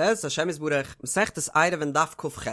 בעזרת השם יתברך, מסכת עירובין דף כ"ח.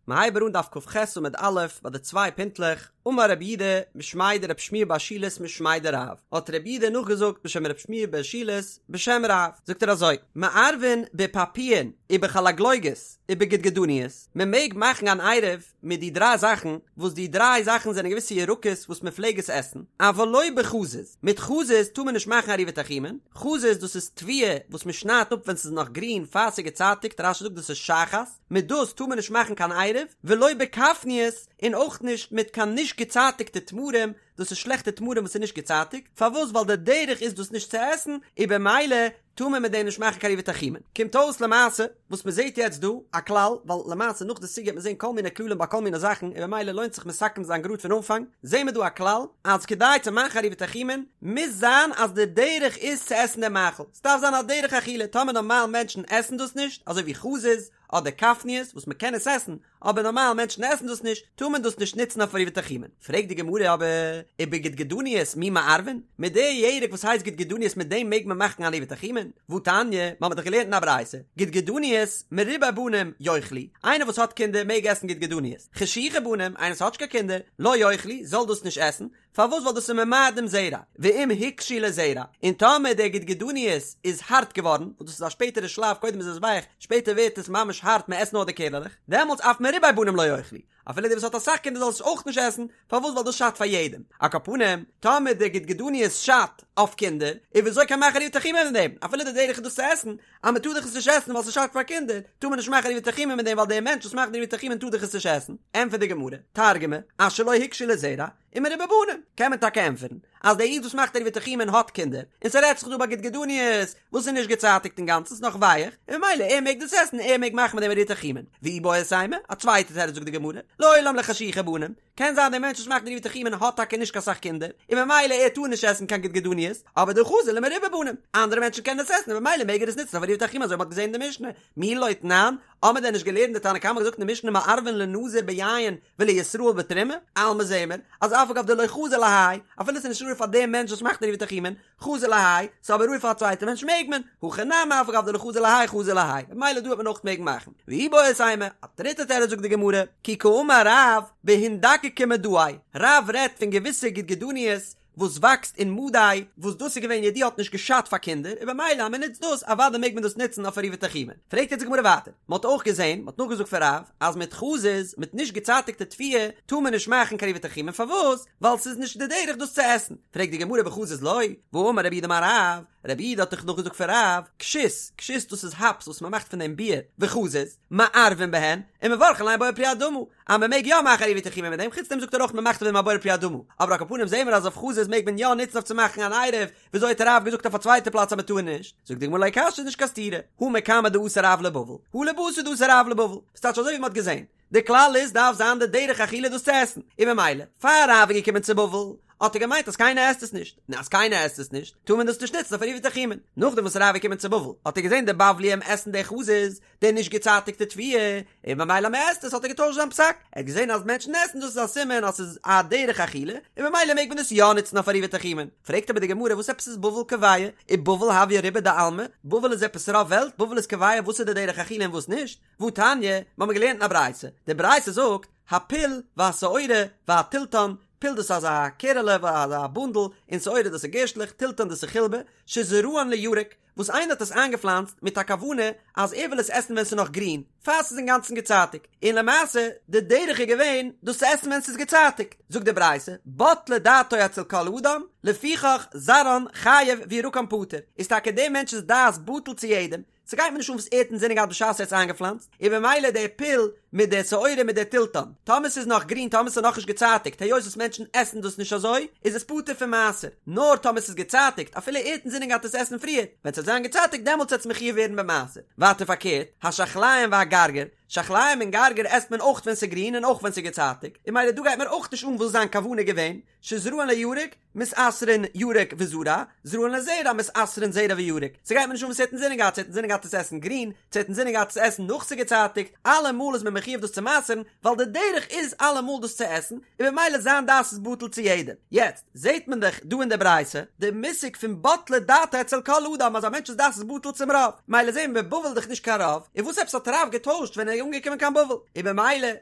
מ'הייבט אן דף כ"ח עמוד א' ביי די צוויי פינטלעך, אמר רב יהודה משמיה דרב שמואל בר שילת משמיה דרב, האט רב יהודה נאכגעזאגט בשם רב שמואל בר שילת בשם רב, זאגט ער אזוי, מערבין בפפאין ובחלגלוגות ובגדגדניות, מ'מעג מאכן אן עירוב מיט די דריי זאכן, וואס די דריי זאכן זענען געוויסע ירקות וואס מען פלעג עס עסן, אבל לא בחזיז, מיט חזיז טאר מען נישט מאכן עירובי תחומין, חזיז דאס איז תבואה וואס מען שניידט אפ ווען ס'איז נאך גרין פאר ס'איז געצייטיגט, רש"י זאגט דאס איז שחת, מיט דאס טאר מען נישט מאכן קיין עירוב, ולא בכפניות, און אויך נישט מיט קיין נישט געצייטיגטע תמרים, דאס איז שלעכטע תמרים וואס איז נישט געצייטיגט, פארוואס ווייל די דרך איז דאס נישט צו עסן, און במילא טאר מען מיט דעם נישט מאכן קיין עירובי תחומין. קומט אויס למעשה וואס מען זעט יעצט דא א כלל, ווייל למעשה נאך די סוגיא וועט מען זען כל מיני כללים ביי כל מיני זאכן און במילא לוינט זיך מסכם זיין גראד פון אנפאנג, זעהן מיר דא א כלל אז כדי צו מאכן עירובי תחומין מוז זיין אז די דרך איז צו עסן דעם מאכל, ס'דארף זיין א דרך אכילה, טאמער נארמאל מענטשן עסן דאס נישט, אזוי ווי חזיז אדער כפניות וואס מען קען עס עסן, אבער נארמאל מענטשן עסן דאס נישט, טאר מען דאס נישט נוצן אויף עירובי תחומין. פרעגט די גמרא אבער, ובגדגדניות מי מערבין? מיט די ירק וואס הייסט גדגדניות מיט דעם מעג מען מאכן אן עירובי תחומין? והתניא, מיר האבן דאך געלערנט אין א ברייתא, גדגדניות מרובי בנים יאכלו, איינער וואס האט קינדער מעג עסן גדגדניות, חשוכי בנים, איינער וואס האט נישט קיין קינדער, לא יאכלו, זאל דאס נישט עסן, פארוואס ווייל דאס איז ממעט דעם זרע, ואם הוקשו לזרע, און טאמער דער גדגדניות איז הארט געווארן, וואס דאס איז א שפעטערע שלב קודם איז עס ווייך, שפעטער ווערט עס ממש הארט מען עסט נאר די קערעלעך, דעמאלטס אף מרובי בנים לא יאכלו, אפילו דער וואס האט אסאך קינדער זאל עס אויך נישט עסן, פארוואס ווייל דאס שאדט פאר יעדעם, על כל פנים, טאמער דער גדגדניות שאדט אויף קינדער, איז וויאזוי קען מען מאכן עירובי תחומין מיט דעם, אפילו די דרך איז דאס צו עסן, אז מען טאר דאך עס נישט עסן ווייל ס'שאדט פאר קינדער, טאר מען נישט מאכן עירובי תחומין מיט דעם ווייל דער מענטש וואס מאכט די עירובי תחומין טאר דאך עס נישט עסן, ענטפערט די גמרא, תרגמא, אשר לא הוקשו לזרע, ומרובי בנים, קען מען טאקע ענטפערן אז דער איד וואס מאכט עירובי תחומין האט קינדער, און ס'רעדט זיך דא ביי גדגדניות וואס איז נישט געצייטיגט אינגאנצן ס'איז נאך ווייעך, און ממילא ער מעג דאס עסן ער מעג מאכן מיט דעם עירובי תחומין. ואיבעית אימא, א צווייטע תירוץ זאגט די גמרא, לעולם לחשוכי בנים, קען זיין דער מענטש וואס מאכט עירובי תחומין האט טאקע נישט קיין סאך קינדער, און ממילא ער טאר נישט עסן קיין גדגדניות, אבער דחזי למרובי בנים, אנדערע מענטשן קענען עס עסן און ממילא מעג ער עס נוצן אויף עירובי תחומין אזוי ווי מ'האט געזען אין די משנה, מי לא תנן, האמער דען נישט געלערנט די תנא קמא האט געזאגט אין די משנה מערבין לנזיר ביין ולישראל בתרומה, אלמא זעמיר אז אף על גב דלא חזי להאי, אפילו ס'איז נישט ראוי פאר דעם מענטש וואס מאכט עירובי תחומין, חזי להאי, ס'איז אבער ראוי פאר א צווייטע מענטש מעג מען, הכא נמי אף על גב דלא חזי להאי חזי להאי, ממילא דא וועט מען אויך מעגן מאכן. ואיבעית אימא, א דריטע תירוץ זאגט די גמרא, כי קאמר רב בהינדקקי מדאי, רב רעדט פון געוויסע גדגדניות וואס וואקסט אין מדי, וואס דאס איז געווען ידוע האט נישט געשאדט פאר קינדער, און במילא אז מען נוצט דאס אוודאי מעג מען דאס נוצן אויף עירובי תחומין. פרעגט יעצט די גמרא ווייטער, מען האט אויך געזען, מען האט נאכגעזאגט פון רב, אז מיט חזיז, מיט נישט געצייטיגטע תבואה, טאר מען נישט מאכן קיין עירובי תחומין, פארוואס? ווייל ס'איז נישט די דרך דאס צו עסן. פרעגט די גמרא בחזיז לא, והאמר רב יהודה אמר רב, רב יהודה האט דאך נאכגעזאגט פון רב, כשות, כשות דאס איז האפס וואס מען מאכט פון דעם ביר, וחזיז, מערבין בהן, ומברכין עליהן בורא פרי האדמה, אז מען מעג יא מאכן עירובי תחומין מיט דעם, חוץ דעם זאגט ער אויך מען מאכט אויף דעם א בורא פרי האדמה, אבער על כל פנים זעהן מיר אז אויף חזיז מעג מען יא נוצן אויף צו מאכן אן עירוב, וויאזוי האט רב געזאגט אויף א צווייטע פלאץ אז מען טאר נישט? זאגט די גמרא לא קשיא איז נישט קיין סתירה, הא מקמי דאתא רב לבבל, הא לבתר דאתא רב לבבל, ס'טייטש אזוי ווי מען האט געזעהן, די כלל איז דארף זיין די דרך אכילה דאס צו עסן, און ממילא פאר רב איז געקומען צו בבל האט ער געמיינט אז קיינער עסט עס נישט, און אז קיינער עסט עס נישט טאר מען דאס נישט נוצן אויף עירובי תחומין, נאכדעם וואס רב איז געקומען צו בבל האט ער געזעהן די בבליים עסן די חזיז, די נישט געצייטיגטע תבואה, און ממילא מען עסט עס האט ער געטוישט זיין פסק, ער האט געזען אז מענטשן עסן דאס איז א סימן אז ס'איז א דרך אכילה, און ממילא מעג מען עס יא נוצן אויף עירובי תחומין. פרעגט אבער די גמרא וואס עפעס איז בבל קובע, ובבל הויא רובא דעלמא, בבל איז עפעס רוב וועלט, בבל איז קובע וואס איז די דרך אכילה און וואס נישט, והתניא, מיר האבן געלערנט אין א ברייתא, די ברייתא זאגט, הפול והשעורה והתלתן, פול דאס איז אזא קערעלע, אזא בונדל, און שעורה דאס איז גערשטלעך, תלתן דאס איז חילבה, שזרען לירק, וואס איינער האט עס איינגעפלאנצט מיט א כוונה אז ער וויל עס עסן ווען ס'איז נאך גרין, פאר ס'איז אינגאנצן געצייטיגט, און למעשה די דרך איז געווען דאס צו עסן ווען ס'איז געצייטיגט, זאגט די ברייתא, בטלה דעתו אצל כל אדם, לפיכך זרען חייב וירקן פטור, איז טאקע דעם מענטש'ס דעת בטל צו יעדעם, ס'גייט מיר נישט אן וואס ער האט אינזינען געהאט בשעת ער האט עס איינגעפלאנצט, און במילא די פול מיט די שעורה מיט די תלתן, טאמער ס'איז נאך גרין טאמער ס'איז נאכנישט געצייטיגט היות וואס מענטשן עסן דאס נישט אזוי איז עס פטור פון מעשר, נאר טאמער ס'איז געצייטיגט אפילו ער האט אינזינען געהאט עס עסן פריער, ווען ס'וועט זיין געצייטיגט דעמאלטס וועט עס מחויב ווערן במעשר. ווייטער פארקערט, השחליים והגרגיר. שחליים און גרגיר עסט מען אויך ווען ס'איז גרין און אויך ווען ס'איז געצייטיגט, און ממילא דא גייט מיר אויך נישט אן וואס זיין כוונה געווען, שזרען לירק, מתעשרין ירק וזרע, זרען לזרע, מתעשרין זרע וירק. ס'גייט מיר נישט אן וואס ער האט אינזינען געהאט, צו ער האט אינזינען געהאט עס עסן גרין, צו ער האט אינזינען געהאט עס עסן נאך ס'איז געצייטיגט, אלעמאל איז מען מחיוב דאס צו מעשר'ן, ווייל די דרך איז אלעמאל דאס צו עסן, און במילא זיין דעת איז בטל צו יעדעם. יעצט, זעט מען דאך דא אין די ברייתא, די מושג פון בטלה דעתו אצל כל אדם אז א מענטש'ס דעת איז בטל צום רוב. מילא זעהן מיר בבל איז דאך נישט קיין רוב, און וואס עפעס האט רב געטוישט ווען ער איז אנגעקומען קיין בבל? און במילא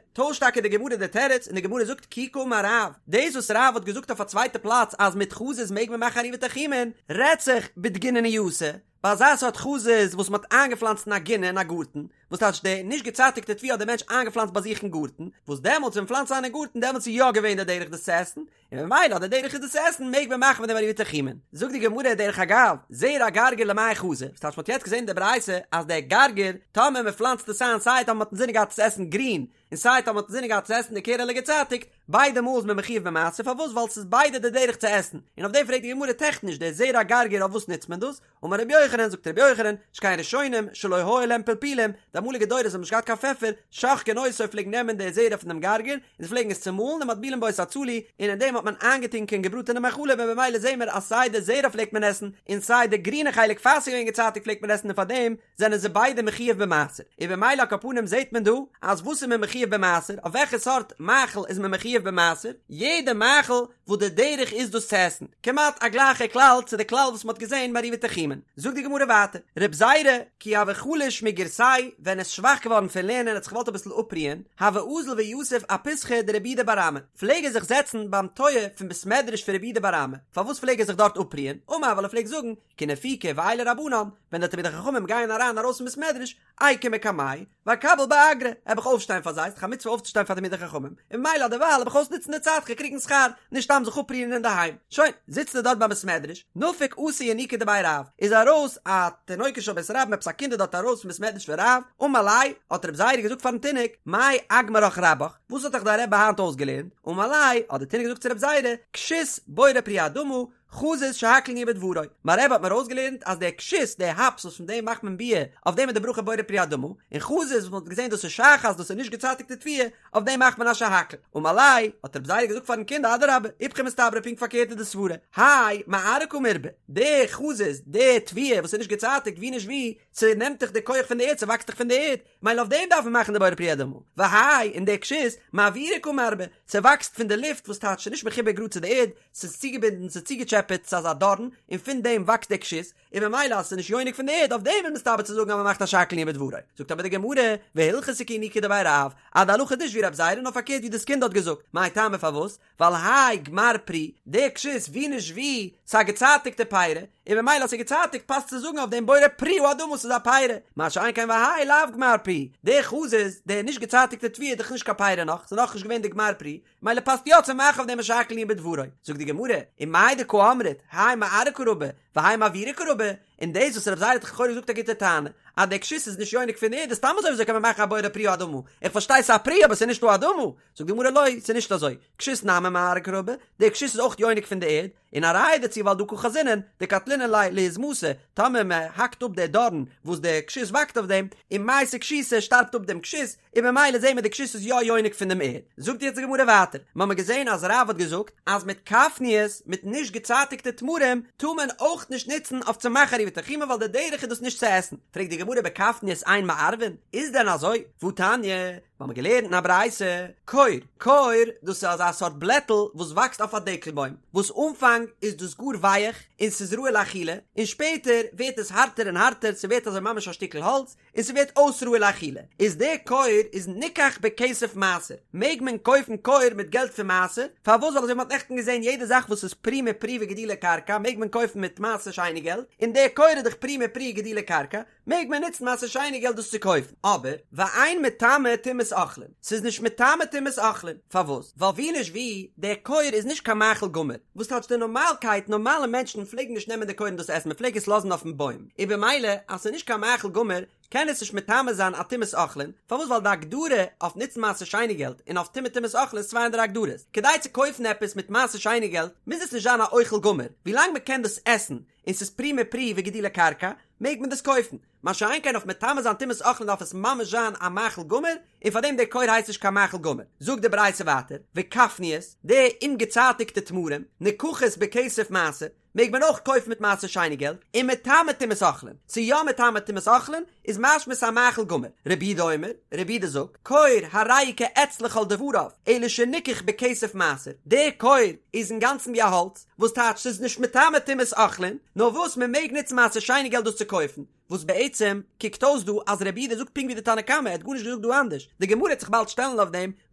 טוישט טאקע די גמרא די תירוץ און די גמרא זאגט כי קאמר רב, דאס וואס רב האט געזאגט אויף א צווייטע פלאץ אז מיט חזיז מעג מען מאכן עירובי תחומין, רעדט זיך בדגינונייתא, ביי אזא סארט חזיז וואס מען האט איינגעפלאנצט אין א גינה אין א גארטן, וואס טייטש די נישט געצייטיגטע תבואה האט דער מענטש איינגעפלאנצט ביי זיך אין גארטן, וואס דעמאלטס ווען מ'פלאנצט איין אין גארטן דעמאלטס איז יא געווען די דרך דאס צו עסן, און ממילא אז די דרך איז דאס צו עסן מעג מען מאכן מיט דעם עירובי תחומין. זאגט די גמרא דרך אגב, זרע גרגיר למאי חזי, וואס טייטש מ'האט יעצט געזען אין די ברייתא אז דער גרגיר, טאמער מ'פלאנצט עס איין סיי טאמער מ'האט אינזינען געהאט עס צו עסן גרין, און סיי טאמער מ'האט אינזינען געהאט צו עסן די קערעלע געצייטיגט, ביידע מאל איז מען מחיוב במעשר, פארוואס? ווייל ס'איז ביידע די דרך צו עסן, און אויף דעם פרעגט די גמרא טעכניש דער זרע גרגיר אויף וואס נוצט מען דאס? אמר רבי יוחנן, זאגט רבי יוחנן, שכן ראשונים שלא היו להם פלפולים, די אמאליגע דורות האבן נישט געהאט קיין פעפער, שוחקין אותו פלעגן נעמען די זרע פון דעם גרגיר, און זיי פלעגן עס צומאלן ומטבילין בו את הצלי, און אין דעם האט מען איינגעטונקען געבראטענע מאכלים און במילא זעהן מיר אז סיי די זרע פלעגט מען עסן, און סיי די גרינע חלק פאר ס'איז געווען געצייטיגט פלעגט מען עסן און פארדעם זענען זיי ביידע מחיוב במעשר, און במילא על כל פנים זעהט מען דא אז וואס איז מען מחיוב במעשר, אויף וועלכע סארט מאכל איז מען מחיוב במעשר, יעדע מאכל וואס די דרך איז דאס צו עסן, כמעט א גלייכע כלל צו די כלל וואס מען האט געזען ביי עירובי תחומין. זאגט די גמרא ווייטער, רב זירא, כי הוה חליש מגירסיה, ווען ער איז שוואך געווארן פון לערנען ער האט זיך געוואלט אביסל אפרוען, הוה אזיל ויתיב אפיתחא דרב יהודה בר אמי, פלעג ער זיך זעצן ביים טויער פון בית מדרש פון רב יהודה בר אמי, פארוואס פלעג ער זיך דארט אפרוען? אמר ווייל ער פלעגט זאגן, כי נפיקי ועיילי רבנן, ווען די תלמידי חכמים גייען אריין ארויס פון בית מדרש, איקום מקמייהו, ואקביל באגרא, העב איך אויפשטיין פאר זיי, ס'דאך א מצוה אויפצושטיין פאר תלמידי חכמים, און ממילא דערווייל העב איך אויסנוצן די צייט כ'גיי קריגן שכר, נישט סתם זיך אפרוען אינדערהיים. שוין, זיצט ער דארט ביים בית מדרש, נפק אתא ינוקא דבי רב, איז ארויס א תינוקא של בית רבן עפעס א קינד איז דארט ארויס פון בית מדרש פון רב, אמר ליה, האט רב זירא געזאגט פארן תינוק, מאי אגמרך רבך, וואס האט דיך דיין רבי היינט אויסגעלערנט? אמר ליה, האט דער תינוק געזאגט צו רב זירא, כשות בורא פרי האדמה, חזיז שהכל נהיה בדברו, מיין רבי האט מיר אויסגעלערנט אז דער כשות, דער האפס וואס פון דעם מאכט מען ביר, אויף דעם איז די ברכה בורא פרי האדמה, און חזיז וואס מען האט געזען דאס איז שחת, דאס איז נישט געצייטיגטע תבואה, אויף דעם מאכט מען א שהכל. אמר ליה, האט רב זירא געזאגט פארן קינד אדרבה, איפכא מסתברא פונקט פארקערט איז די סברה, האי מארעא קא מירבי, די חזיז, די תבואה וואס איז נישט געצייטיגט ווי נישט ווי, ס'נעמט דאך די כח פון די ערד, ס'וואקסט דאך פון די ערד, מילא אויף דעם דארף מען מאכן די בורא פרי האדמה, והאי און די כשות, מאוירא קא מירבי, ס'וואקסט פון די לופט וואס טייטש ס'איז נישט מחובר גראד צו די ערד, ס'איז צוגעבינדן, ס'איז צוגעטשעפעט צו אזא דארן, און פון דעם וואקסט די כשות, און ממילא אז ס'איז נישט יונק פון די ערד, אויף דעם איז מסתבר צו זאגן אז מ'מאכט א שהכל נהיה בדברו. זאגט אבער די גמרא, והלכתא כינוקא דבי רב, אז די הלכה איז נישט ווי רב זירא נאר פארקערט ווי דאס קינד האט געזאגט, מאי טעמא פארוואס? ווייל האי גמר פרי, די כשות ווי נישט ווי, ס'איז א געצייטיגטע פירא, און ממילא אז ס'איז געצייטיגט פאסט צו זאגן אויף דעם בורא פרי האדמה ס'איז א פירא, מה שאין כן והאי לאו גמר פרי, די חזיז, די נישט געצייטיגטע תבואה איז דאך נישט קיין פירא נאך, ס'איז נאכנישט געווען די גמר פרי, מילא פאסט יא צו מאכן אויף דעם א שהכל נהיה בדברו. זאגט די גמרא, ומאי דקא אמרת, האי מארעא קא רבי, והאי מאוירא קא רבי, און דאס וואס רב זירא האט לכאורה געזאגט א גוטע טענה, אז די כשות איז נישט יונק פון די ערד איז סתם אזוי וויאזוי קען מען מאכן א בורא פרי האדמה, איך פארשטיי ס'איז א פרי אבער ס'איז נישט האדמה, זאגט די גמרא לא, ס'איז נישט אזוי, כשות נמי מארעא קא רבי, די כשות איז אויך יונק פון די ערד, און א ראיה דערצו ווייל דהא קא חזינן, דקטלינן ליה להזמתא, טאמער מען האקט אפ די דארן וואס די כשות וואקסט אויף דעם, ומייתי כשותא שטארבט אפ דעם כשות, און ממילא זעהן מיר די כשות איז יא יונק פון דעם ערד. זאגט יעצט די גמרא ווייטער, מיר האבן געזעהן אז רב האט געזאגט אז מיט כפניות, מיט נישט געצייטיגטע תמרים, טאר מען אויך נישט נוצן אויף צו מאכן עירובי תחומין ווייל די דרך איז דאס נישט צו עסן. פרעגט די גמרא בכפניות אין מערבין, איז דען אזוי? והתניא, מיר האבן געלערנט אין א ברייתא, קור, קור, דאס איז אזא סארט בלעטל וואס וואקסט אויף א דקל בוים, וואס אנפאנג איז דאס גאר ווייעך און ס'איז ראוי לאכילה, און שפעטער ווערט עס הארטער און הארטער, ס'ווערט אזוי ממש א שטיקל האלץ, און ס'ווערט אויס ראוי לאכילה, איז די קור איז ניקח בכסף מעשר, מעג מען קויפן קור מיט געלט פון מעשר, פארוואס ווייל אזוי ווי מ'האט נעכטן געזען יעדע זאך וואס איז פרי מפרי וגידולי קרקע מעג מען קויפן מיט מעשר שני געלט, און די קור איז דאך פרי מפרי וגידולי קרקע, מעג מען נוצן מעשר שני געלט דאס צו קויפן, אבער ואין מטמא טומאת אוכלין, ס'איז נישט מטמא טומאת אוכלין, פארוואס? ווייל ווי נישט ווי, דער קור איז נישט קיין מאכל גמור, וואס טייטש די נארמאלקייט, נארמאלע מענטשן פלעגן נישט נעמען די קור און דאס עסן, מ'פלעג עס לאזן אויפן בוים, און במילא אז ס'איז נישט קיין מאכל גמור, קען עס נישט מטמא זיין א טומאת אוכלין, פארוואס ווייל די הגדרה אויף נוצן מעשר שני געלט און אויף טומאה טומאת אוכלין איז צוויי אנדערע הגדרות, כדי צו קויפן עפעס מיט מעשר שני געלט מוז עס נישט זיין א אוכל גמור, ווילאנג מ'קען דאס עסן און ס'איז פרי מפרי וגידולי קרקע, מעג מען דאס קויפן. מה שאין כן אויף מטמא זיין טומאת אוכלין דארף עס ממש זיין א מאכל גמור, און פאר דעם דער כור הייסט נישט קיין מאכל גמור. זאגט די ברייתא ווייטער, וכפניות, די אומגעצייטיגטע תמרים, נקחות בכסף מעשר, מעג מען אויך קויפן מיט מעשר שני געלט, ומטמא טומאת אוכלין, ס'איז יא מטמא טומאת אוכלין, איז משמע ס'א מאכל גמור. רבי יהודה אומר, רבי יהודה זאגט, כור הרי הוא כעץ לכל דבריו, אלא שניקח בכסף מעשר, דער כור איז אינגאנצן ווי א האלץ, וואס טייטש ס'איז נישט מטמא טומאת אוכלין, נאר וואס מ'מעג נוצן מעשר שני געלט דאס צו קויפן, וואס בעצם קוקט אויס דא אז רבי יהודה זאגט פונקט ווי די תנא קמא, ער האט גארנישט געזאגט דא אנדערש, די גמרא וועט זיך באלד שטעלן אויף דעם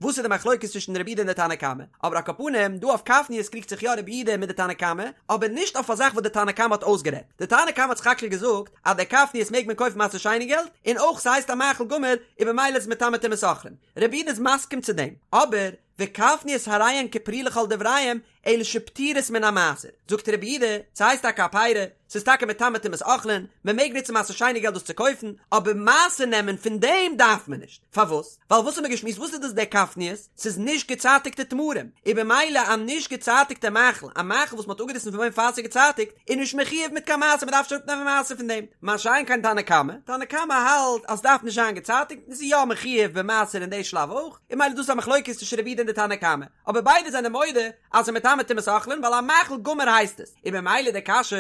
וואס איז די מחלוקת צווישן רבי יהודה און די תנא קמא, אבער על כל פנים דא אויף כפניות קריגט זיך יא רבי יהודה מיט די תנא קמא, אבער נישט אויף א זאך וואס די תנא קמא האט אויסגערעדט, די תנא קמא האט סך הכל געזאגט אז די כפניות מעג מען קויפן מעשר שני געלט, און אויך ס'הייסט א מאכל גמור און במילא איז מטמא טומאת אוכלין, רבי יהודה איז מסכים צו דעם, אבער וכפניות הרי הן כפרי לכל דבריהם, אלא שפטורות מן המעשר, זאגט רבי יהודה, ס'הייסט טאקע א פירי, ס'איז טאקע מטמא טומאת אוכלין, מ'מעג נוצן מעשר שני געלט דאס צו קויפן, אבער מעשר נעמען פון דעם דארף מען נישט, פארוואס? ווייל וואס האט מען געשמועסט וואס איז דאס די כפניות? ס'איז נישט געצייטיגטע תמרים, און במילא א נישט געצייטיגטע מאכל, א מאכל וואס מ'האט אפגעריסן פון בוים פאר ס'איז געצייטיגט, איז נישט מחויב מיט קיין מעשר, מ'דארף נישט אראפנעמען מעשר פון דעם, מה שאין כן תנא קמא, תנא קמא האלט אז ס'דארף נישט זיין געצייטיגט און ס'איז יא מחויב במעשר אין די שלב אויך, און במילא דאס איז א מחלוקת צווישן רבי יהודה און די תנא קמא. אבער ביידע זענען מודה אז ס'איז מטמא טומאת אוכלין ווייל א מאכל גמור הייסט עס, און במילא די קשיא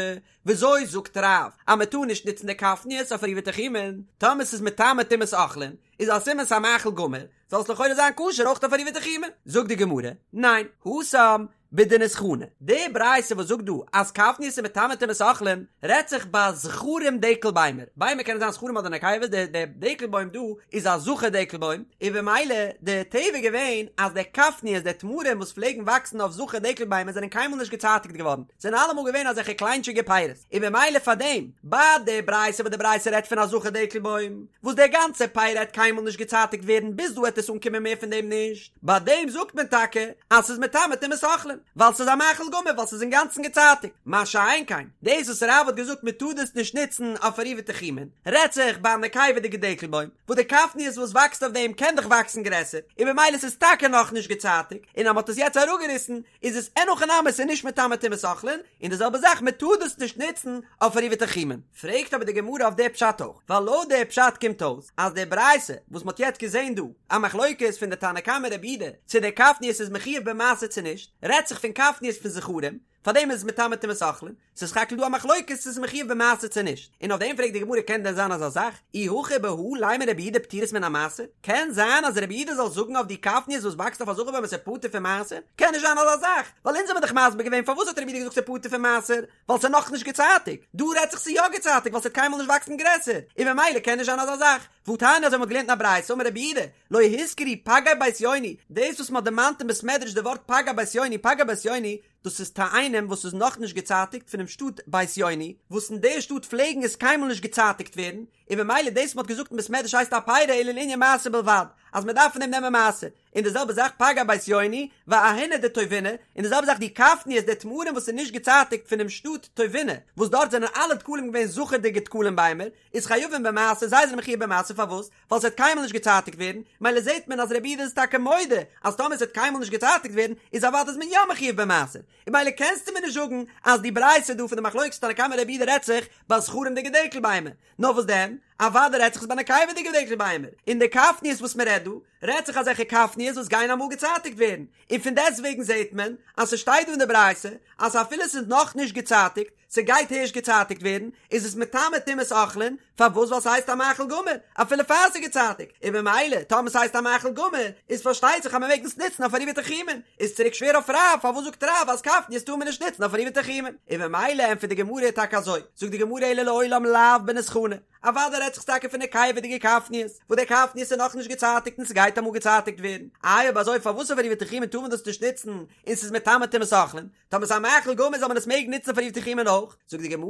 וויאזוי זאגט רב אז מ'טאר נישט נוצן די כפניות אויף עירובי תחומין, טאמער ס'איז מטמא טומאת אוכלין איז א סימן ס'איז א מאכל גמור, זאל עס לכאורה זיין כשר אויך אויף עירובי תחומין, זאגט די גמרא, ניין, התם בדניסחני, די ברייתא וואס זאגט דא אז כפניות איז מטמא טומאת אוכלין רעדט זיך ביי זכרים דקל ביימער, ביימער קענען זיין זכרים אדער נקבות, די די דקל בוים דא איז א זכר דקל בוים, און במילא די טבע איז געווען אז די כפניות די תמרים וואס פלעגן וואקסן אויף זכר דקל ביימער זענען קיינמאל נישט געצייטיגט געווארן, זענען אלעמאל געווען אזעלכע קליינטשיגע פירות, און במילא פארדעם ביי די ברייתא וואס די ברייתא רעדט פון א זכר דקל בוים וואס די גאנצע פרי העט קיינמאל נישט געצייטיגט ווערן ביז דא העט עס אנקומען מער פון דעם נישט. ביי דעם זאגט מען טאקע אז ס'איז מטמא טומאת אוכלין, ווייל ס'איז א מאכל גמור ווייל ס'איז אינגאנצן געצייטיגט, מה שאין כן דאס וואס רב האט געזאגט מען טאר דאס נישט נוצן אויף עירובי תחומין, רעדט זיך ביי א נקבה'דיגע דקל בוים, וואס די כפניות וואס וואקסט אויף דעם קען דאך וואקסן גרעסער, און במילא ס'איז טאקע נאכנישט געצייטיגט, און אז מ'האט עס יעצט אראפגעריסן איז עס אין הכי נמי ס'איז נישט מטמא טומאת אוכלין, און די זעלבע זאך מען טאר דאס נישט נוצן אויף עירובי תחומין. פרעגט אבער די גמרא אויף די פשט אויך, ווייל לויט די פשט קומט אויס אז די ברייתא וואס מ'האט יעצט געזען דא, א מחלוקת פון די תנא קמא רבי יהודה צו די כפניות איז מחויב במעשר צו נישט, רעדט זיך פון כפניות פון זכרים, פארדעם איז עס מטמא טומאת אוכלין, ס'איז סך הכל דא א מחלוקת צו ס'איז מחויב במעשר צו נישט, און אויף דעם פרעגט די גמרא קען דען זיין אזא זאך, אי הכי בהא לימא רבי יהודה פטורות מן המעשר, קען זיין אז רבי יהודה זאל זאגן אויף די כפניות וואס וואקסט אויף א זכר בוים אז ס'איז פטור פון מעשר? קען נישט זיין אזא זאך, ווייל אונז האבן דאך מסביר געווען פארוואס האט רבי יהודה געזאגט ס'איז פטור פון מעשר, ווייל ס'איז נאכנישט געצייטיגט, דא רעדט זיך ס'איז יא געצייטיגט ווייל ס'וועט קיינמאל נישט וואקסן גרעסער, און ממילא קען נישט זיין אזא זאך. והתניא אזוי מ'האט געלערנט אין א ברייתא אמר רבי יהודה, לא הוזכרו פגי בית יוני, דאס וואס מ'האט דערמאנט אין בית מדרש די ווארט פגי בית יוני, פגי בית יוני, דאס איז תאנים וואס איז נאכנישט געצייטיגט פונעם שטאט בית יוני, וואס אין די שטאט פלעגן עס קיינמאל נישט געצייטיגט ווערן, און ממילא דאס מ'האט געזאגט אין בית מדרש הייסט א פירי אלא לענין מעשר בלבד, אז מ'דארף פון דעם נעמען מעשר. און די זעלבע זאך פגי בית יוני ואהיני דטובינא, און די זעלבע זאך די כפניות די תמרים וואס איז נישט געצייטיגט פונעם שטאט טובינא, וואס דארט זענען אלע דקלים געווען זכר'דיגע דקלים ביימער, איז חייבין במעשר, זיי זענען מחויב במעשר פארוואס? ווייל ס'וועט קיינמאל נישט געצייטיגט ווערן, מילא זעט מען אז רבי יהודה איז טאקע מודה אז טאמער ס'וועט קיינמאל נישט געצייטיגט ווערן איז אוודאי איז מען יא מחויב במעשר, און מילא קענסטו מיר נישט זאגן אז די ברייתא דא פון די מחלוקת תנא קמא רבי יהודה רעדט זיך ביי זכרים'דיגע דקל ביימער, נאר וואס דען? אוודאי רעדט זיך עס ביי נקבה'דיגע דקל ביימער, און די כפניות וואס מען רעדט דא, רעדט זיך אזעלכע כפניות וואס גייען אמאל געצייטיגט ווערן, און פון דעסטוועגן זעט מען אז ס'שטייט דא אין די ברייתא אז אפילו ס'איז נאך נישט געצייטיגט, ס'גייט הערשט געצייטיגט ווערן, איז עס מטמא טומאת אוכלין, פארוואס ווייל ס'הייסט א מאכל גמור, אפילו פאר ס'איז געצייטיגט, און ממילא טאמער ס'הייסט א מאכל גמור, איז פארשטייט זיך אז מ'מעג דאס נוצן אויף עירובי תחומין, איז צוריק שווער אויף רב, פארוואס זאגט רב אז כפניות טאר מען נישט נוצן אויף עירובי תחומין? און ממילא ענטפערט די גמרא טאקע אזוי, זאגט די גמרא אלא לעולם לאו בניסחני, אוודאי רעדט זיך טאקע פון נקבה'דיגע כפניות, וואס די כפניות איז נאכנישט געצייטיגט און ס'גייט אמאל געצייטיגט ווערן, איי אויב אזוי פארוואס אויף עירובי תחומין טאר מען דאס נישט נוצן און ס'איז מטמא טומאת אוכלין, טאמער ס'איז א מאכל גמור זאל מען עס מעגן נוצן פאר עירובי תחומין אויך? זאגט די גמרא,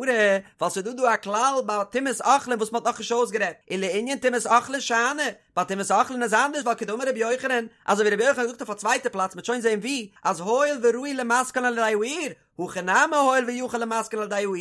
ווייל ס'איז דא דא א כלל ביי טומאת אוכלין וואס מ'האט נאכנישט אויסגערעדט, ולענין טומאת אוכלין שאני, ביי טומאת אוכלין איז אנדערש ווייל כדאמר רבי יוחנן, אזוי ווי רבי יוחנן האט געזאגט אויף א צווייטע פלאץ מ'וועט שוין זען וואו, אז הואיל וראוי למתקן על ידי האור, הכא נמי הואיל ויכול למתקן על ידי האור,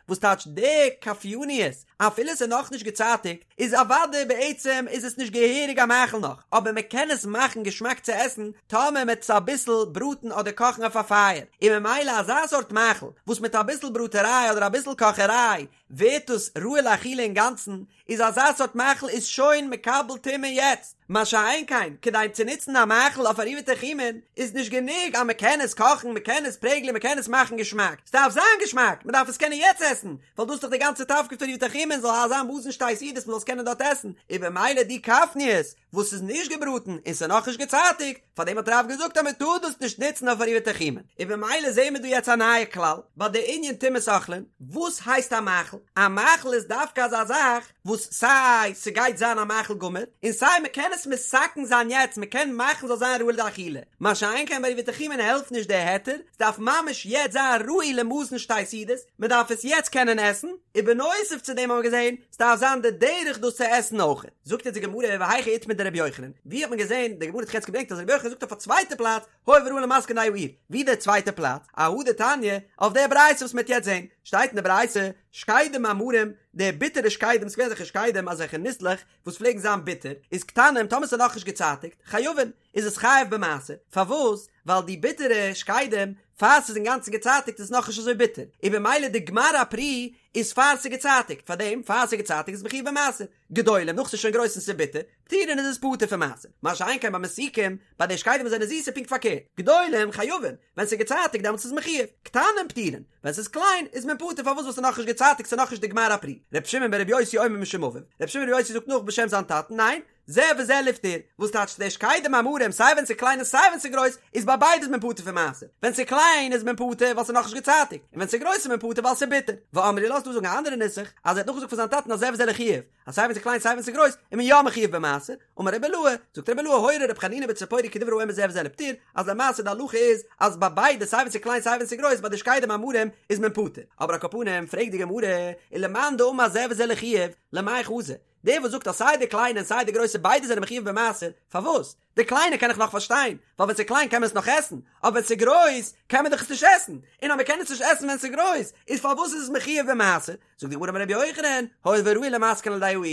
וואס טייטש די כפניות? אפילו ס'איז נאכנישט געצייטיגט, איז אוודאי בעצם איז עס נישט געהעריג א מאכל נאך, אבער מען קען עס מאכן געשמאק צו עסן טאמער מען וועט עס אביסל בראטן אדער קאכן אויף א פייער, און ממילא אזא סארט מאכל וואס מיט אביסל בראטעריי אדער אביסל קאכעריי ווערט עס ראוי לאכילה אינגאנצן, איז אזא סארט מאכל איז שוין מקבל טומאה יעצט, מה שאין כן כדי צו נוצן א מאכל אויף עירובי תחומין איז נישט גענוג אז מען קען עס קאכן, מען קען עס פרעגלען, מען קען עס מאכן געשמאק, ס'דארף זיין געשמאק, מען דארף עס קענען יעצט עסן, ווייל דאס איז דאך די גאנצע תפקיד פון עירובי תחומין זאל זיין מזון שתי סעודות מען זאל עס קענען דארט עסן, און במילא די כפניות וואס איז נישט געבראטן און ס'איז נאכנישט געצייטיגט, פאר דעם האט רב געזאגט אז מען טאר דאס נישט נוצן אויף עירובי תחומין, און במילא זעהן מיר דא יעצט א נייע כלל ביי די ענין טומאת אוכלין, וואס הייסט א מאכל? א מאכל איז דווקא אזא זאך וואס סיי ס'גייט זיין א מאכל גמור, און סיי מען קען עס מתקן זיין יעצט, מען קען מאכן ס'זאל זיין ראוי לאכילה, מה שאין כן ביי עירובי תחומין העלפט נישט די היתר, ס'דארף ממש יעצט זיין ראוי למזון שתי סעודות, מען דארף עס יעצט קענען עסן, און בנוסף צו דעם האבן מיר געזען, ס'דארף זיין די דרך דאס צו עסן אויך. זאגט אונז די גמרא והיכא איתמר דרבי יוחנן, ווי האט מען געזען, די גמרא האט יעצט געברענגט אז רבי יוחנן זאגט אויף א צווייטע פלאץ, הואיל וראוי למתקן על ידי האור, ווי דער צווייטע פלאץ? אהא דתניא, אויף דער ברייתא וואס מ'העט יעצט זען, שטייט אין די ברייתא, שקדים המרים, די ביטערע שקדים, ס'געווען אזעלכע שקדים, אזעלכע ניסלעך, וואס פלעגן זיין ביטער, איז קטנים, טאמער ס'איז נאכנישט געצייטיגט, חייבין, איז עס חייב במעשר, פארוואס? ווייל די ביטערע שקדים, פאר ס'איז אינגאנצן געצייטיגט איז עס נאכנישט אזוי ביטער, און במילא די גמר הפרי איז פאר ס'איז געצייטיגט, פארדעם פאר ס'איז געצייטיגט איז מחויב במעשר, גדולים נאך ס'איז שוין גרויס און ס'איז ביטער, פטורין איז עס פטור פון מעשר, מה שאין כן ביי מתוקים, ביי די שקדים וואס זענען זיס איז פונקט פארקערט, גדולים חייבין, ווען ס'איז געצייטיגט דעמאלטס איז מחויב, קטנים פטורין, ווען ס'איז קליין איז מען פטור פארוואס ווייל ס'איז נאכנישט געצייטיגט ס'איז נאכנישט די גמר הפרי, ר' שמעון בר' יוסי אומר משום אביו, ר' שמעון בר' יוסי זאגט נאך בשם זיין טאטן, ניין, זה וזה לפטור, וואס טייטש די שקדים המרים סיי ווען ס'איז קליין און סיי ווען ס'איז גרויס, איז ביי ביידע איז מען פטור פון מעשר, ווען ס'איז קליין איז מען פטור ווייל ס'איז נאכנישט געצייטיגט, און ווען ס'איז גרויס איז מען פטור ווייל ס'איז ביטער. ואמרי לה ס'דא זאגן א אנדערע נוסח, אז ער האט נאכגעזאגט פון זיין טאטן אז זה וזה לחיוב, אז סיי ווען ס'איז קליין סיי ווען ס'איז גרויס איז מען יא מחויב במעשר, אמר רבי אילעא, זאגט רבי אילעא הורה רבי חנינא בציפורי כדברי האומר זה וזה לפטור, אז למעשה די הלכה איז אז ביי ביידע סיי ווען ס'איז קליין סיי ווען ס'איז גרויס ביי די שקדים המרים איז מען פטור. אבער על כל פנים פרעגט די גמרא, ולמאן דאמר זה וזה לחיוב, למאי חזי? דער וואס זאגט אז סיי די קליינע און סיי די גרויסע ביידע זענען מחויב במעשר, פארוואס? די קליינע קען איך נאך פארשטיין, ווייל ווען ס'איז קליין קען מען עס נאך עסן, אבער ווען ס'איז גרויס קען מען דאך עס נישט עסן, און אז מען קען עס נישט עסן ווען ס'איז גרויס, איז פארוואס איז עס מחויב במעשר? זאגט די גמרא אמר רבי יוחנן, הואיל וראוי למתקן על ידי האור,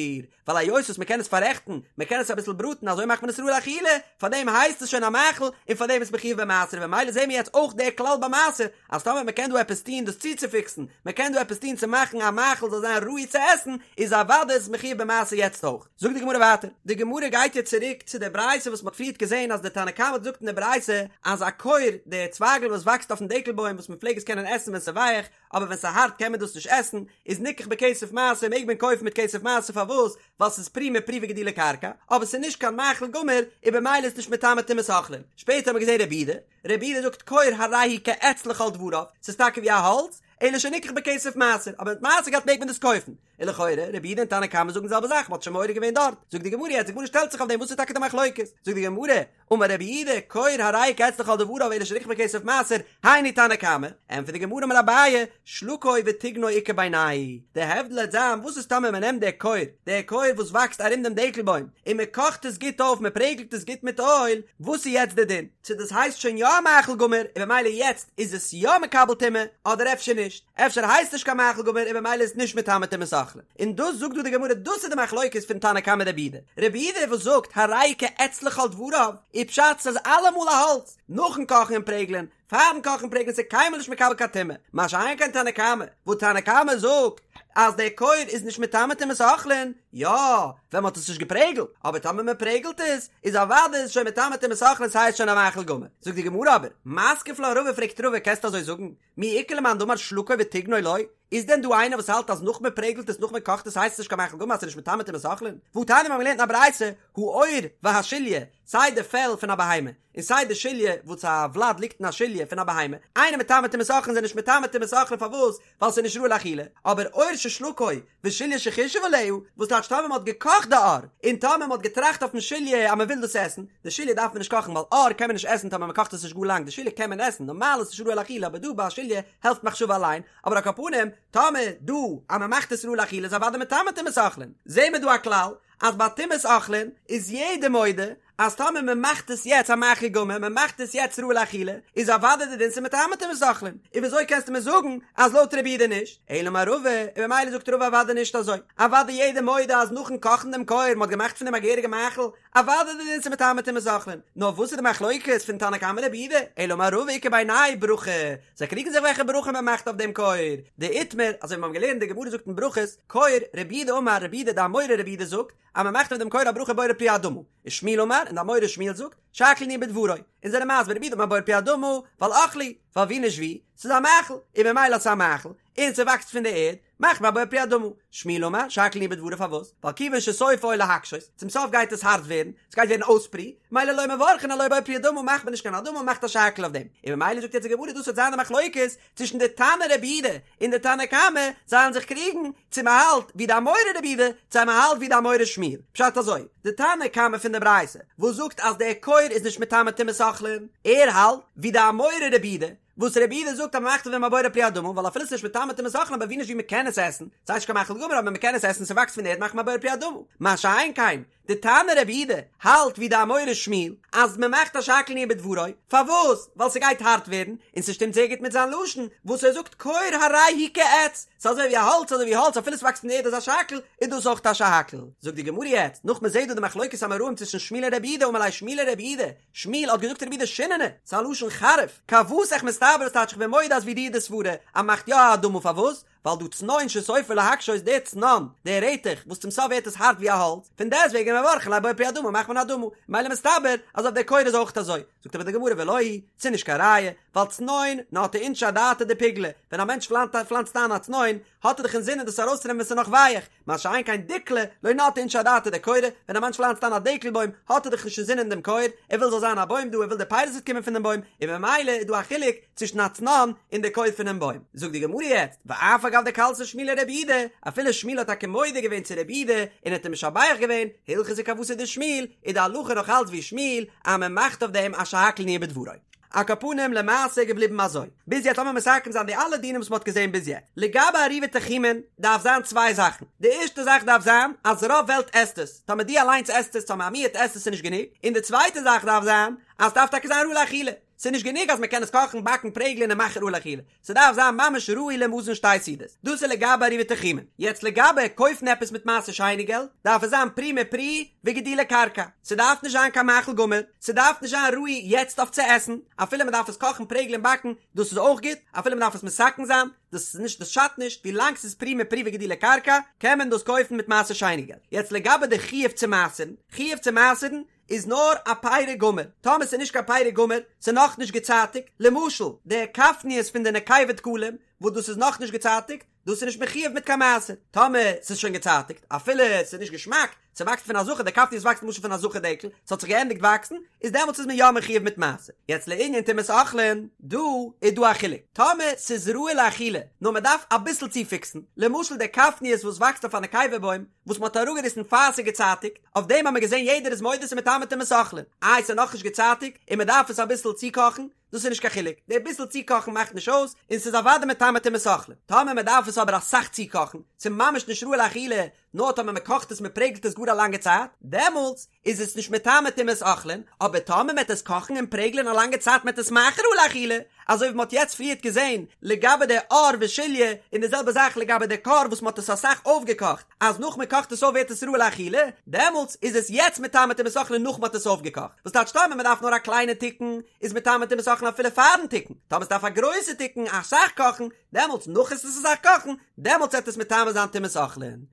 ווייל היות וואס מען קען עס פאררעכטן, מען קען עס אביסל בראטן אזוי מאכט מען עס ראוי לאכילה, פארדעם הייסט עס שוין א מאכל, און פארדעם איז מחויב במעשר, וממילא זעהן מיר יעצט אויך דער כלל ביי מעשר, אז טאמער מען קען דא עפעס טון דאס צוצופיקסן, מען קען דא עפעס טון צו מאכן א מאכל זאל זיין ראוי צו עסן, איז אוודאי איז עס מחויב במעשר יעצט אויך. זאגט די גמרא ווייטער, די גמרא גייט יעצט צוריק צו די ברייתא וואס מען האט פריערט געזען אז די תנא קמא האט געזאגט אין די ברייתא אז עקור, די צווייגל וואס וואקסט אויפן דקל בוים וואס מען פלעג עס קענען עסן ווען ס'איז ווייך, אבער ווען ס'איז הארט קען מען דאס נישט עסן, איז ניקח בכסף מעשר מעג מען קויפן מיט כסף מעשר פארוואס? ווייל ס'איז פרי מפרי וגידולי קרקע, אבער ס'איז נישט קיין מאכל גמור, און במילא איז נישט מטמא טומאת אוכלין. שפעטער האט מען געזען רבי יהודה, רבי יהודה זאגט כור הרי הוא כעץ לכל דבריו, ס'איז טאקע ווי א האלץ, אלא שניקח בכסף מעשר, אבער מיט מעשר געלט מעג מען דאס קויפן. און לכאורה, רבי יהודה און תנא קמא זאגן די זעלבע זאך, מ'האט שוין מעורר געווען דארט. זאגט די גמרא יעצט, די גמרא שטעלט זיך אויף דעם, וואס איז טאקע די מחלוקת? זאגט די גמרא, אמר רבי יהודה, כור הרי הוא כעץ לכל דבריו אלא שניקח בכסף מעשר, היינו תנא קמא, ענטפערט די גמרא אמר אביי, שלקו וטיגנו איכא בינייהו, די הבדל העט זיין וואס איז טאמער מ'נעמט די כור, די כור וואס וואקסט ארום דעם דקל בוים, און מ'קאכט עס גוט אויף, מ'פרעגלט עס גוט מיט אויל, וואס איז יעצט די דין? צו דאס הייסט שוין יא א מאכל גמור און במילא יעצט איז עס יא מקבל טומאה, אדער אפשר נישט, אפשר הייסט נישט קיין מאכל גמור און במילא איז נישט מטמא טומאת אוכלין. און דאס זאגט דא די גמרא דאס איז די מחלוקת פון תנא קמא רבי יהודה, רבי יהודה וואס זאגט הרי הוא כעץ לכל דבריו, איז פשט ס'איז אלעמאל א האלץ, נאכן קאכן און פרעגלען, פארן קאכן פרעגלען ס'איז קיינמאל נישט מקבל קיין טומאה, מה שאין כן תנא קמא, וואס תנא קמא זאגט אז דער כור איז נישט מטמא טומאת אוכלין, יא, ווען מ'האט עס נישט געפרעגלט, אבער טאמער מ'פרעגלט עס, איז אוודאי איז שוין מטמא טומאת אוכלין ס'הייסט שוין א מאכל גמור. זאגט די גמרא אבער, מתקיף לה רבא פרעגט רבא קענסט אזוי זאגן, מי איכא למאן דאמר שלקו וטיגנו לא, איז דען דא איינער וואס האלט אז נאך מ'פרעגלט עס נאך מ'קאכט עס הייסט עס נישט קיין מאכל גמור אז ס'איז נישט מטמא טומאת אוכלין? והתניא מיר האבן געלערנט אין א ברייתא, העור והשליה, סיי די פעל פון א בהמה, און סיי די שליה וואס א ולד ליגט אין א שליה פון א בהמה, אינן מטמא טומאת אוכלין זענען נישט מטמא טומאת אוכלין פארוואס? ווייל ס'איז נישט ראוי לאכילה, אבער עור ששלקו ושליה שחישב עליה, וואס טייטש טאמער מ'האט געקאכט די עור, און טאמער מ'האט געטראכט אויפן שליה אז מ'וויל דאס עסן, די שליה דארף מען נישט קאכן ווייל עור קען מען נישט עסן טאמער מ'קאכט עס נישט גאר לאנג, די שליה קען מען עסן, נארמאל איז נישט ראוי לאכילה אבער דא ביי א שליה העלפט מחשבה אליין, אבער על כל פנים, טאמער דא אז מ'מאכט עס ראוי לאכילה איז אוודאי מטמא טומאת אוכלין, זעהן מיר דא א כלל אז ביי טומאת אוכלין איז יעדער מודה. אז טאמער מען מאכט עס יעצט א מאכל גמור, מען מאכט עס יעצט ראוי לאכילה, איז אוודאי די דין ס'איז מטמא טומאת אוכלין, און וויאזוי קענסטו מיר זאגן אז לויט רבי יהודה נישט? אלא אמר רבא, און ממילא זאגט רבא אוודאי נישט אזוי, אוודאי יעדער מודה אז נאכן קאכן דעם כור, מען האט געמאכט פון דעם א געהעריגע מאכל, אוודאי די דין ס'איז מטמא טומאת אוכלין, נאר וואס איז די מחלוקת פון תנא קמא רבי יהודה, אלא אמר רבא איכא בינייהו ברכה, זיי קריגן זיך וועלכע ברכה מען מאכט אויף דעם כור, דאיתמר, אזוי ווי מיר האבן געלערנט די גמרא זאגט אין ברכות, כור, רבי יהודה אמר רבי יהודה די אמורא רבי יהודה זאגט, אז מען מאכט אויף דעם כור א ברכה בורא פרי האדמה, ושמואל אמר, און די אמורא שמואל זאגט, שהכל נהיה בדברו, און זענען מסביר רבי יהודה אמר בורא פרי האדמה, ווייל אוכלא הוא, ווייל ווי נישט ווי, ס'איז א מאכל, און ממילא אז ס'איז א מאכל, און ס'וואקסט פון די ערד, מאכט מען א בורא פרי האדמה. שמואל אמר, שהכל נהיה בדברו פארוואס? ווייל כיוון שסופו להקשות, צום סוף גייט עס הארט ווערן, ס'גייט ווערן אויס פרי, ממילא לא מברכין עילויה בורא פרי האדמה מאכט מען נישט קיין אדמה מ'מאכט א שהכל אויף דעם, און ממילא זאגט יעצט די גמרא דאס וועט זיין די מחלוקת צווישן די תנא רבי יהודה און די תנא קמא, זיי וועלן זיך קריגן צו מ'האלט ווי די אמורא רבי יהודה צו מ'האלט ווי די אמורא שמואל, פשט אזוי, די תנא קמא פון די ברייתא וואס זאגט אז דער כור איז נישט מטמא טומאת אוכלין, ער האלט ווי די אמורא רבי יהודה, וואס רבי יהודה זאגט אז מ'מאכט אויף דעם א בורא פרי האדמה, ווייל אפילו ס'איז נישט מטמא טומאת אוכלין אבער ווי נישט ווי מ'קען עס עסן, ס'הייסט נישט קיין מאכל גמור אבער מ'קען עס עסן ס'וואקסט פון די ערד מאכט מען א בורא פרי האדמה, מה שאין כן די תנא רבי יהודה האלט ווי די אמורא שמואל אז מ'מאכט א שהכל נהיה בדברו, פארוואס? ווייל ס'גייט הארט ווערן, און ס'שטימט זייער גוט מיט זיין לשון וואס ער זאגט כור הרי הוא כעץ, ס'איז אזוי ווי א האלץ אזוי ווי האלץ אפילו ס'וואקסט פון די ערד איז א שהכל, איז דאס אויך א שהכל. זאגט די גמרא יעצט, נאך מ'זעט דא די מחלוקת אמוראים צווישן שמואל און רבי יהודה אמר ליה שמואל לרבי יהודה, שמואל האט געזאגט רבי יהודה שיננא, ס'איז א לשון חריף, כוותך מסתברא ס'טייטש איך בין מודה אז ווי דיר די סברה אז מ'מאכט יא א אדמה פארוואס? ווייל דהא צנון שסופו להקשות דער צנון, דער רעטעך, וואס צום סוף ווערט עס הארט ווי א האלץ, פון דעסטוועגן מברכין עליה בורא פרי האדמה מאכט מען אדמה, ממילא מסתבר אז אויף דער כור איז אויך אזוי, זאגט אבער די גמרא ולא היא, ס'איז נישט קיין ראיה, ווייל צנון נטעי אינשי אדעתא דפוגלא, ווען א מענטש פלאנצט איין א צנון, האט ער דאך אינזינען דאס ארויסצונעמען ווען ס'איז נאך ווייעך, מה שאין כן דיקלא, לא נטעי אינשי אדעתא דכורא, ווען א מענטש פלאנצט איין א דקל בוים, האט ער דאך נישט אינזינען דעם כור, ער וויל זאל זיין א בוים דא, ער וויל די פירות וועט קומען פון דעם בוים, און ממילא איז דא א חילוק צווישן א צנון און די כור פונעם בוים. זאגט די גמרא יעצט, ואף על גב דקלסיה שמואל לרבי יהודה, אפילו שמואל האט טאקע מודה געווען צו רבי יהודה, און האט אים משבח געווען, הלכתא כוותיה דשמואל, איז די הלכה נאך אלץ ווי שמואל, אז מען מאכט אויף דעם א שהכל נהיה בדברו. על כל פנים למעשה איז געבליבן אזוי. ביז יעצט לאמיר מסכם זיין די אלע דינים וואס מ'האט געזען ביז יעצט. לגבי עירובי תחומין דארף זיין צוויי זאכן. די ערשטע זאך דארף זיין אז רוב וועלט עסט עס. טאמער דו אליינס עסט עס, טאמער א מיעוט עסט עס איז נישט גענוג. און די צווייטע זאך דארף זיין אז ס'דארף טאקע זיין ראוי לאכילה. ס'איז נישט גענוג אז מ'קען עס קאכן, באקן, פרעגלען און מאכן ראוי לאכילה. ס'דארף זיין ממש ראוי למזון שתי סעודות. דאס איז לגבי עירובי תחומין. יעצט לגבי קויפן עפעס מיט מעשר שני געלט, דארף עס זיין פרי מפרי וגידולי קרקע. ס'דארף נישט זיין קיין מאכל גמור, ס'דארף נישט זיין ראוי יעצט אויף צו עסן, אפילו מ'דארף עס קאכן פרעגלען באקן, דאס איז אויך גוט, אפילו מ'דארף עס מתקן זיין, דאס איז נישט דאס שאדט נישט, ווילאנג ס'איז פרי מפרי וגידולי קרקע, קען מען דאס קויפן מיט מעשר שני געלט. יעצט לגבי די חיוב צו מעשר'ן, חיוב צו מעשר'ן איז נאר א פרי גמור, טאמער ס'איז נישט קיין פרי גמור, ס'איז נאכנישט געצייטיגט, למשל די כפניות פון די נקבה דקלים, וואס דאס איז נאכנישט געצייטיגט, דאס איז נישט מחויב מיט קיין מעשר, טאמער ס'איז שוין געצייטיגט, אפילו ס'איז נישט געשמאק, ס'וואקסט פון א זכר, די כפניות וואקסט למשל פון א זכר דקל, ס'האט זיך געענדיגט וואקסן, איז דעמאלטס איז מען יא מחויב מיט מעשר. יעצט לענין טומאת אוכלין, דא איז דא א חילוק, טאמער ס'איז ראוי לאכילה, נאר מ'דארף אביסל צופיקסן, למשל די כפניות וואס וואקסט אויף א נקבה בוים, וואס מ'האט אראפגעריסן פאר ס'איז געצייטיגט, אויף דעם האט מען געזען יעדער איז מודה ס'איז מטמא טומאת אוכלין, איי ס'איז נאכנישט געצייטיגט און מ'דארף עס אביסל צוקאכן, דאס איז נישט קיין חילוק, די ביסל צוקאכן מאכט נישט אויס, און ס'איז אוודאי מטמא טומאת אוכלין. טאמער מ'דארף עס אבער אסאך צוקאכן, ס'איז ממש נישט ראוי לאכילה, נאר טאמער מ'קאכט עס מ'פרעגלט עס גאר א לאנגע צייט, דעמאלטס איז עס נישט מטמא טומאת אוכלין, אבער טאמער מ'עט עס קאכן און פרעגלען א לאנגע צייט מ'עט עס מאכן ראוי לאכילה, אזוי ווי מ'האט יעצט פריערט געזען לגבי די עור ושליה, און די זעלבע זאך לגבי די כור וואס מ'האט עס אסאך אויפגעקאכט, אז נאך מ'קאכט עס אויף ווערט עס ראוי לאכילה, דעמאלטס איז עס יעצט מטמא טומאת אוכלין נאך מ'האט עס אויפגעקאכט, וואס טייטש טאמער מ'דארף נאר א קליינע תיקון איז מטמא טומאת אוכלין אפילו פארן תיקון, טאמער ס'דארף א גרויסע תיקון אסאך קאכן, דעמאלטס נאך עס אסאך קאכן, דעמאלטס וועט עס מטמא זיין טומאת אוכלין.